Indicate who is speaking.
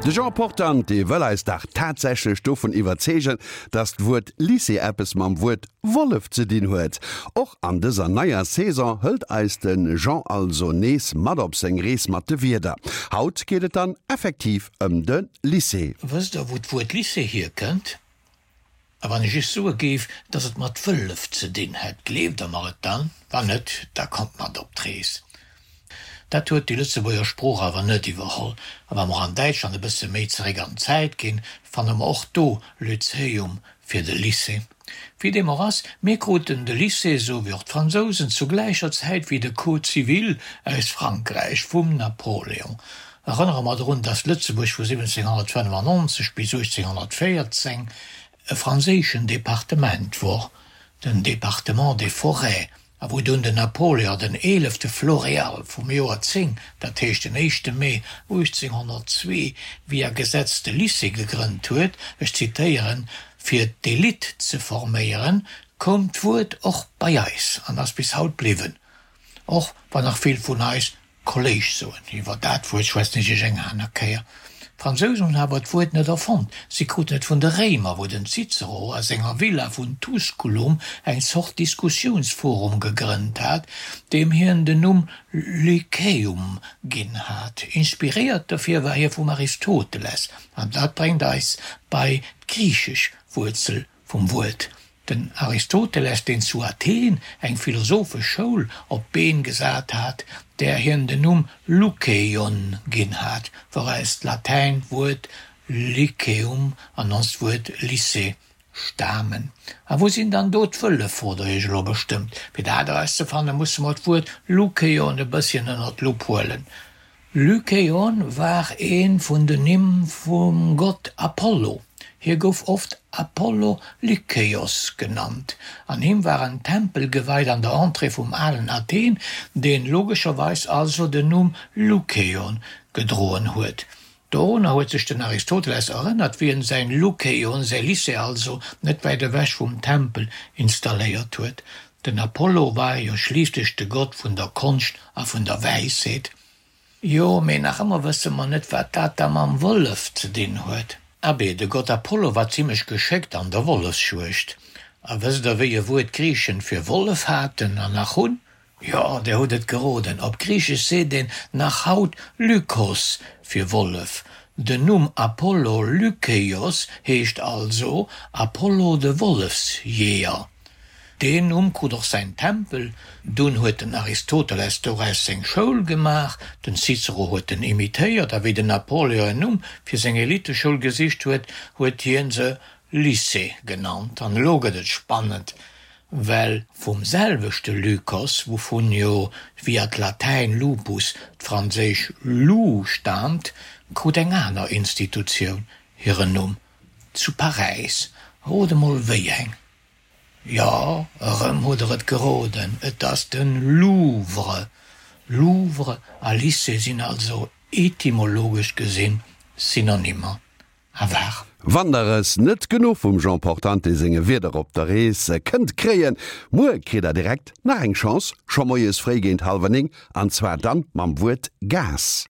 Speaker 1: De Jean Portante wëll eis dach tatsächlech dovun iwwerzeegen, dass d'Wuert Lycée eppes mam Wuert Wollef ze dinn huet. Och an dëser neier Saison hëlt eis de Jean also nees mat op seng Rees mat de Wierder. Haut geet et dann effektiv ëm de Lycée.
Speaker 2: Wësst der wou d'Wuert Lycée hierkënnt? A wann ech iech soe géif, dass et mat Wëllef ze dinn hätt, gleeft der mer et dann? Wann net, da kommt mat op d'Rees. Dat huet déi Lëtzebuerger Sprooch awer net iwwerholl. A wa mer an Däitschland e bësse méi zeréck an d'Zäit ginn, fanne mer och do Lyzeum fir de Lycée. Wéi deem och ass, mir kruten de Lycée, esou wéi och d'Fransousen, zu gläicher Zäit wéi de Code civil aus Frankräich vum Napoléon. Erënnere mer drun, datt Lëtzebuerg vu 1795 bis 1814 e franséischen Departement wor, den Département des Forêts, a wou dunn den Napoléon den eelefte Floréal vum Joer 10, dat heescht den éischte Mee 1802, via Gesetz de Lycée gegrënnt huet, ech zitéieren, fir d'Elite ze forméieren, koum d'Wuert och bei eis an ass bis haut bliwwen, och wann nach vill vun eis Kolléig soen. Iwwer dat Wuert schwätzen ech iech eng aner Kéier. D'Fransousen hunn awer d'Wuert net erfonnt, si kruten et vun de Réimer, wou den Cicero a senger Villa vun Tusculum eng Zort Diskussiounsforum gegrënnt hat, deem hien den Numm Lyceum ginn hat. Inspiréiert dofir war hie vum Aristoteles, an dat bréngt eis bei d'griichesch Wuerzel vum Wuert. Den Aristoteles, deen zu Athen eng philosophesch Schoul op d'Been gesat hat, där hien den Numm Lukeion ginn hat, wouraus d'Latäin Wuert Lyceum an onst Wuert Lycée stamen. A wou sinn dann do d'Wëllef, frot der iech elo bestëmmt. Fir dat erauszefanne musse mer d'Wuert Lukeion e bësschen ënner d'Lupp huelen. Lykaon war ee vun den Nimm vum Gott Apollo. Hie gouf oft Apollo Lykeios genannt. An him war en Tempel geweit an der Entrée vum alen Athen, deen logescherweis also den Numm Lukeion gedroen huet. Dorunner huet sech den Aristoteles erënnert, wéi en säin Lukeion, säi Lycée also, net wäit ewech vum Tempel installéiert huet. Den Apollo war jo schliisslech de Gott vun der Konscht a vun der Wäisheet. Jo, mee nach ëmmer wësse mer net, wat dat da mam Wollef ze dinn huet. Abee, de Gott Apollo war zimlech geschéckt an der Wollefsjuegd. A wësst der, wéi e Wuert d'Griichen fir Wollef haten an nach hunn? Jo, der hutt et geroden, op Griichesch seet een nach haut Lykos fir Wollef. Den Numm Apollo Lykeios heescht also Apollo de Wollefsjeeër. Deen Numm krut och säin Tempel. Dunn huet den Aristoteles doraus seng Schoul gemaach, den Cicero huet en imitéiert, a wéi den Napoléon en Numm fir seng Eliteschoul gesicht huet, huet hien se Lycée genannt. An elo gëtt et spannend, well vum selwechte Lykos, wouvun jo via d'Latäin lupus d'franséisch loup staamt, krut eng aner Institutioun hiren Numm, zu Paräis. Rot emol wéi eng? Jo, erëm hutt der et geroden, et ass de Louvre. Louvre a Lycée sinn also etymologesch gesinn Synonymer. A war.
Speaker 1: Wann der es net genuch vum Jean Portante senge Wierder op der Rees kënnt kréien, muer kritt der direkt nach eng Chance, scho moies fréi géint hallwer 9, an zwar dann mam Wuert Gas.